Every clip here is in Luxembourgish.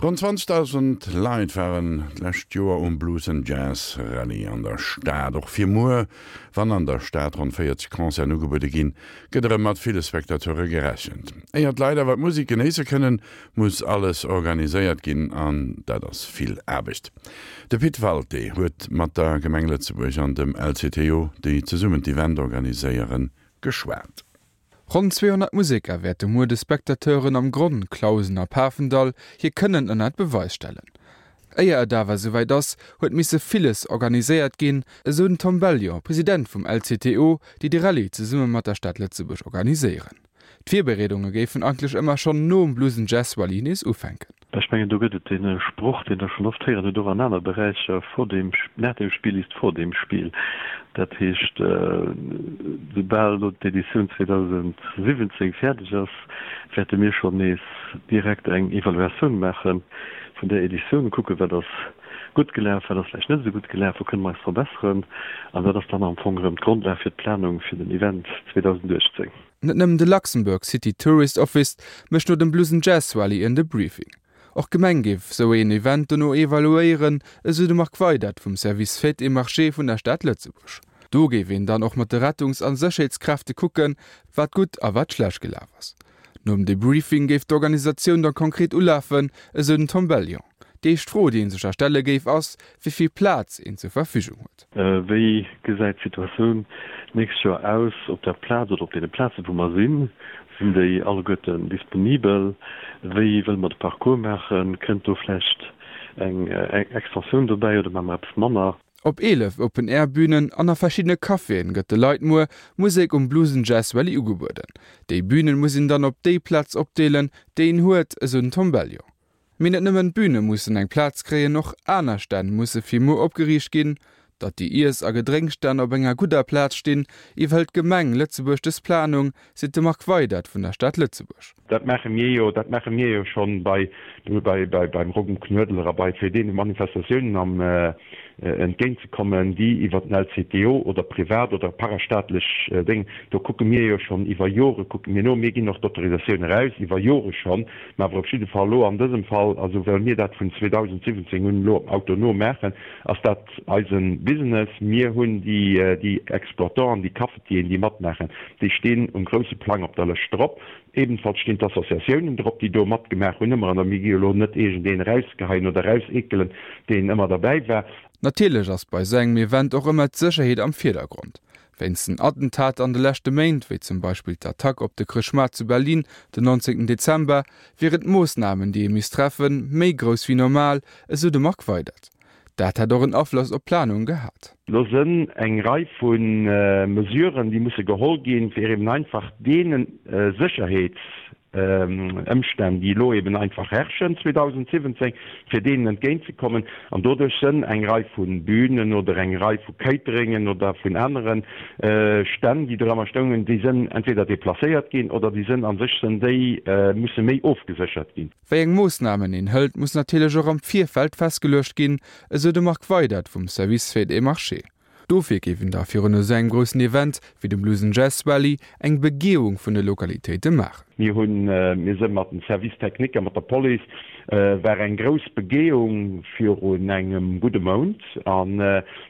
Ronn 20.000 Leit waren d'lescht Joer um Blues and Jazz Rallye an der Stad. Och fir muer, wann an der Stad ronn 40 Concerten ugebuede ginn, gëtt erëm mat ville Spectateure gerechent. Éier d'Leit awer d'Musek genéisse kënnen, muss alles organiséiert ginn an dat ass vill Aarbecht. De Pit Walté huet mat der Gemeng Lëtzebuerg an dem LCTO, déi zesummen d'Event organiséieren, geschwat. Ronn 200 Museker wäerte muer de Spectateuren am Gronn, Clausen a Pafendall hir Kënnen ënnert Beweis stellen. Éier et awer esouwäit ass, huet misse villes organiséiert ginn, esou den Tom Bellion, President vum LCTO, déi de Rallye zesumme mat der Stad Lëtzebuerg organiséieren. D'Virbereedunge géifen eigentlech ëmmer schonn nom Blues 'n Jazz Rallye nees ufänken. Ech mengen, do gëtt et dee Sproch, deen Der schonn oft héieren hutt, och an aner Beräicher, Vor dem, nach dem Spiel ist vor dem Spiel. Dat heescht, soubal elo d'Editioun 2017 fäerdeg ass, wäerte mir schonn nees direkt eng Evaluatioun maache vun där Editioun, kucken, wat ass gutt gelaf, wat ass vläicht net esou gutt gelaf, wou kënne mer eis verbesseren. An dat ass dann am Fong erëm d'Grondlag fir d'Planung fir den Event 2018. Net nëmmen de Luxembourg City Tourist Office mécht no dem Blues 'n Jazz Rallye en Debriefing. Och d'Gemeng géif esou een Event dono evaluéieren, esou de Marc Weydert vum Service Fêtes et Marchés vun der Stad Lëtzebuerg. Do géif een dann och mat de Rettungs a Sécherheetskräfte kucken, wat gutt a wat schlecht gelaf ass. Nom Debriefing géif d'Organisatioun da konkret ulafen, esou den Tom Bellion. Déi éischt Fro, déi ee sech da stelle géif, ass, wéi vill Plaz een zur Verfügung huet. Wéi gesäit d'Situatioun d'nächst Joer aus op der Plaz oder op deene Plazen, wou mer sinn? Sinn déi alleguerten disponibel? Wéi wëlle mer de Parcours maachen? Kënnt do vläicht eng Extensioun dobäi oder maache mer eppes manner? Op 11 Open-Air-Bünen an a verschiddene Caféen gëtt de Leit muer Musek um Blues 'n Jazz Rallye ugebueden. Déi Bünen muss een dann op déi Plaz opdeelen, déi een huet, esou den Tom Bellion. Mee net nëmmen d'Büne mussen eng Plaz kréien, och aner Stänn musse fir muer opgeriicht ginn. Datt déi Iess a Gedrénksstänn op enger gudder Plaz stinn, iwwerhëlt d'Gemeng Lëtzebuerg dës Planung, seet de Marc Weydert vun der Stad Lëtzebuerg. Dat maache mir jo, dat maache mir jo schonn bei, bei, beim Rock um Knuedler a bei fir deene Manifestatiounen am, entgéint ze kommen, déi iwwer den LCTO oder privat oder parastaatlech Déng, do kucke mir jo schonn iwwer Jore kucke mir no. Mir ginn och d'Autorisatioun eraus, iwwer Jore schonn, mä awer op jidde Fall elo an dësem Fall, also well mir dat vun 2017 un elo autonom maachen, ass dat eise Business. Mir hunn déi, déi Exploitanten, déi Cafetieren, déi matmaachen, déi stinn um grousse Plang op der Lëscht drop. Ebenfalls stinn d'Associatiounen drop, déi do matgemaach hunn ëmmer. An mir gi jo elo net iergendeen erausgeheien oder erauseekelen, deen ëmmer derbäi war. Natierlech ass bei esou engem Event och ëmmer d'Sécherheet am Virdergrond. Wéinst den Attentater an de leschte Méint, wéi zum Beispill d'Attack op de Chrëschtmaart zu Berlin den 19 Dezember, wieren d'Moossnamen, déi ee misst treffen, méi grouss wéi normal, esou de Marc Weydert. Dat hätt och en Afloss op d'Planung gehat. Do sënn eng Rei vu Mesuren, déi musse geholl ginn, fir eben einfach deene Sécherheetsëmstänn, déi elo eben einfach herrschen 2017, fir deenen entgéintzekommen. An doduerch sënn eng Rei vu Bünen oder eng Rei vu Cateringen oder vun anere Stänn, déi do ëmmer stoungen, déi sënn entweder deplacéiert ginn oder déi sënn a sech sënn déi musse méi ofgeséchert ginn. Wéi eng Moossnamen een hëlt, muss natierlech och am Virfeld festgeluecht ginn, esou de Marc Weydert vum Service Fêtes et Marchés. Dofir géif een da virun esou engem groussen Event wéi dem Blues 'n Jazz Rallye eng Begehung vun de Lokalitéite maachen. Mir hunn, mir sënn mat dem Service technique a mat der Police, war eng grouss Begehung virun engem gudde Mount an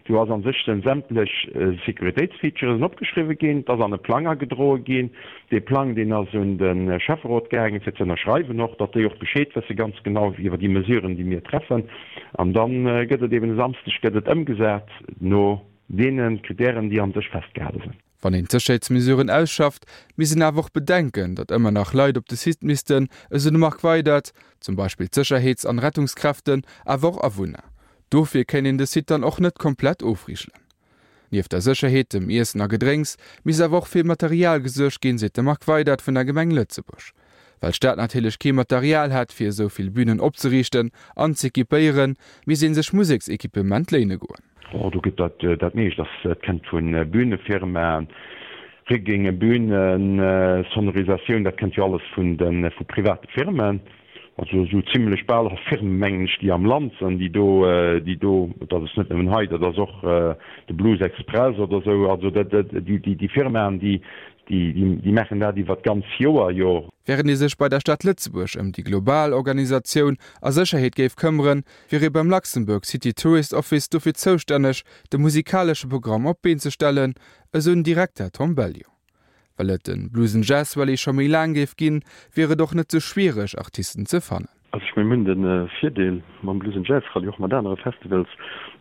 do ass an sech sënn sämtlech Sécuritéitsfeatures opgeschriwwe ginn, et ass an e Plang agedroe ginn. Dee Plang, deen ass un de Schäfferot gaangen, fir ze ënnerschreiwen och, datt déi och Bescheed wësse ganz genau iwwer déi Mesuren, déi mir treffen. An da gëtt et eben e Samsdeg gëtt et ëmgesat no deene Kritären, déi an sech festgehale sinn. Wann een d'Sécherheetsmesuren ausschafft, misst een awer och bedenken, datt ëmmer nach Leit op de Site missten, esou de Marc Weydert, zum Beispill d'Sécherheets an Rettungskräften, awer och Awunner. Dofir kéint een de Site dann och net komplett ofrigelen. Nieft der Sécherheet, dem Iessen a Gedrénks, misst awer och fir Material gesuergt ginn, seet de Marc Weydert vun der Gemeng Lëtzebuerg. Well d'Stad natierlech kee Material hätt, fir esou vill Bünen opzeriichten an z'equipéieren, misst ee sech Museksequipement léine goen. Oh, do gëtt dat dat meescht ass, dat kennt vu Bühnefirmaen, Rigging, Bühnen, Sonorisatioun, dat kennt jo alles vun de vu private Firmen. Also esou zimlech bal all Firmen, mengen ech, déi am Land sinn, déi do, déi do, dat ass net nëmmen hei, dat ass och de Blues Express oder esou, also dat, déi, déi, déi Firmaen, déi, déi, déi maachen dat iwwer d'ganz Joer jo. Wärend ee sech bei der Stad Lëtzebuerg ëm déi global Organisatioun a Sécherheet géif këmmeren, wier ee beim Luxembourg City Tourist Office dofir zoustänneg, de musikalesche Programm op d'Been ze stellen, esou den Direkter Tom Bellion. Well et de Blues and Jazz Rallye scho méi laang géif ginn, wier et och net sou schwiereg, Artisten ze fannen. Also ech mengen, mir hunn de Virdeel mam Blues and Jazz Rallye, och mat anere Festivals,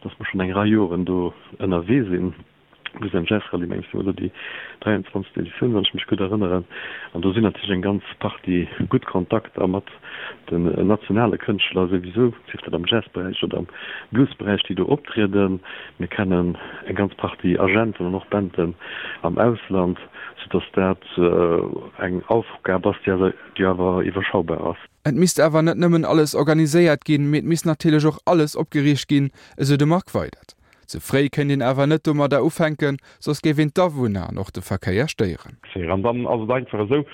dass mer schonn eng Rei Joren do ënnerwee sinn. Blues and Jazz Rallye, mengen ech, si mer elo déi 23. Editioun, wann ech mech gutt erënneren. An do sinn natierlech eng ganz Partie gutt Kontakter mat den nationale Kënschtler souwisou, sief dat am Jazzberäich oder am Bluesberäich, déi do optrieden. Mir kennen eng ganz Partie Agenten an och Banden am Ausland, soudass dat eng Aufgab ass, déi awer iwwerschaubar ass. Et misst awer net nëmmen alles organiséiert ginn, mee et misst natierlech och alles opgeriicht ginn, esou de Marc Weydert. Ze fréi kéint een awer net domadder ufänken, soss géif een d'Awunner an och de Verkéier stéieren. An dann ass et einfach esou,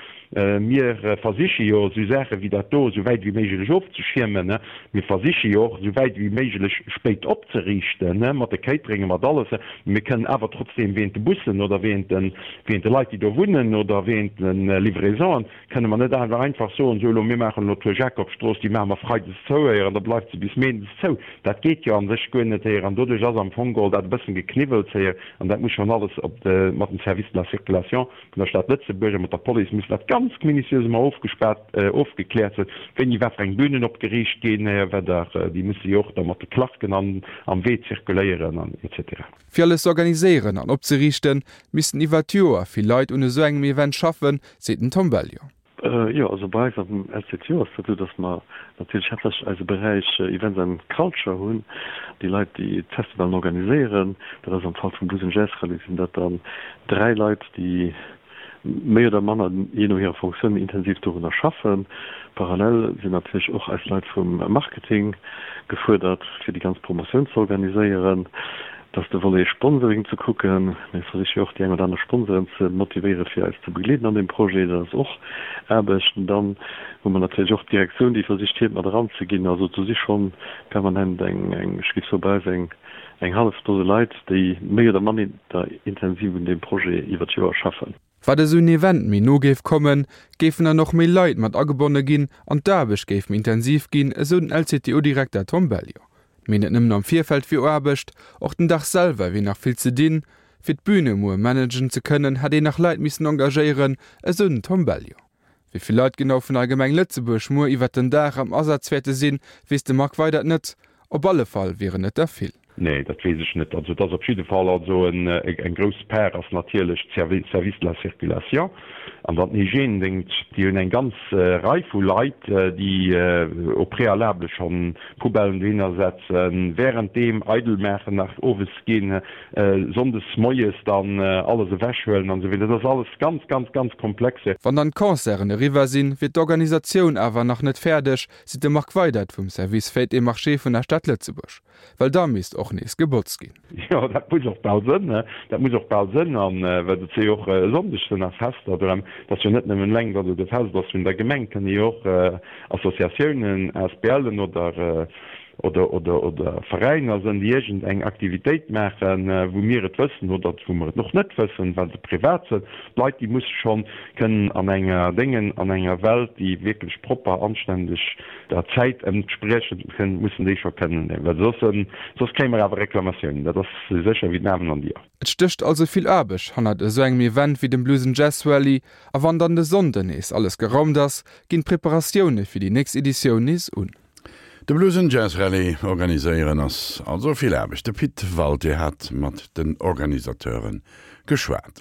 mir versiche jo esou Saache wéi dat do esou wäit wéi méiglech ofzeschiermen. Mir versiche jo och esou wäit wéi méiglech spéit opzeriichten, mat de Cateringen, mat alles. Mee mir kënnen awer trotzdeem wéint de Bussen oder wéint de Leit, déi do wunnen oder wéint de Livraisonen, Kënne mer net awer einfach soen, sou elo, mir maachen elo d'Rue Jacobsstrooss, déi maache mer freides zou héier an da bleift se bis méindes zou. Dat geet jo a sech guer net héier an doduerch ass am Fong geholl dat e bëssen Gekniwwels héier an dat muss schonn alles op de, mat dem Service de la circulation vun der Stad Lëtzebuerg a mat der Police muss dat ganz minutiös ëmmer ofgespaart, ofgekläert sinn, wéini wat fir eng Bünen opgeriicht ginn héier, well der, déi musse jo och da mat de Clarken an am Wee zirkuléieren an et cetera. Fir alles ze organiséieren an opzeriichten, missten iwwer d'Joer vill Leit un esou engem Event schaffen, seet den Tom Bellion. Jo, also bei eis am LCTO ass dat esou, datt mer natierlech haaptsächlech eise Beräich Events and Culture hunn, déi Leit, déi d'Festivalen organiséieren. Dat ass am Fall vum Blues and Jazz Rallye sinn dat dann 3 Leit, déi méi oder manner, jee no hirer Fonctioun, intensiv dorunner schaffen. Parallel sinn natierlech och eis Leit vum Marketing gefuerdert, fir déi ganz Promotioun ze organiséieren. Et ass de Volet Sponsoring ze kucken. Mir versiche jo och déi eng oder aner Sponsoren ze motivéieren, fir eis ze begleeden an deem Projet. Dat ass och Aarbecht. An dann hu mer natierlech och d'Direktioun, déi versicht, hiert mat eranzeginn. Also do si scho permanent eng, ech géif soen, bei eis eng eng hallef Dose Leit, déi méi oder manner intensiv un deem Projet iwwer d'Joer schaffen. Wat esou en Event méi no géif kommen, géifen dann och méi Leit mat agebonne ginn an d'Aarbecht géif méi intensiv ginn, esou den LCTO-Direkter Tom Bellion. Mee net nëmmen am Virfeld wier Aarbecht, och den Dag selwer wier nach vill ze dinn. Fir d'Büne muer managen ze kënnen, hätt een nach Leit missen engagéieren, esou den Tom Bellion. Wéi vill Leit genau vun der Gemeng Lëtzebuerg muer iwwert den Dag am Asaz wäerte sinn, weess de Marc Weydert net. Op alle Fall wieren et der vill. Nee, dat weess ech net. Also et ass op jidde Fall also eng grouss Part ass natierlech d'Service de la circulation an dann den Hygiènedéngscht. Déi hunn eng ganz Rei vu Leit, déi au préalable schonn Poubellen dohinner setzen, währenddeem eidel maachen, nach owes ginn Sonndes moies dann alles ewech huelen an esou weider. Dat ass alles ganz, ganz, ganz komplexe. Wann dann d'Concerten eriwwer sinn, wier d'Organisatioun awer nach net fäerdeg, seet de Marc Weydert vum Service Fêtes et Marchés vun der Stad Lëtzebuerg. Well da misst och nees gebotzt ginn. Jo, dat muss och bal sënn, dat muss och bal sënn. An well et si jo och e Sonndeg sinn nach Fester drëm. Et ass jo net nëmmen eleng, datt et e Fest ass vun der Gemeng, et kënne jo och Associatiounen, ASBLen oder oder oder oder Veräiner sënn, déi iergend eng Aktivitéit maachen, wou mir et wëssen oder wou mer et och net wëssen, well se privat sënn. D'Leit, déi musse schonn kënnen an enger Déngen, an enger Welt, déi wierklech propper, anständeg der Zäit entspriechend kënn, mussen déi scho kënnen, well soss, soss kréie mer awer Reklamatiounen, dat ass esou sécher wéi den Amen an déi. Et stécht also vill Aarbecht hannert esou engem Event wéi dem Blues and Jazz Rallye a wann dann de Sonnden nees alles geraumt ass, ginn d'Preparatioune fir déi nächst Editioun nees un. De Blues and Jazz Rallye organiséieren ass also vill Aarbecht. De Pit Walté hat mat den Organisateure geschwat.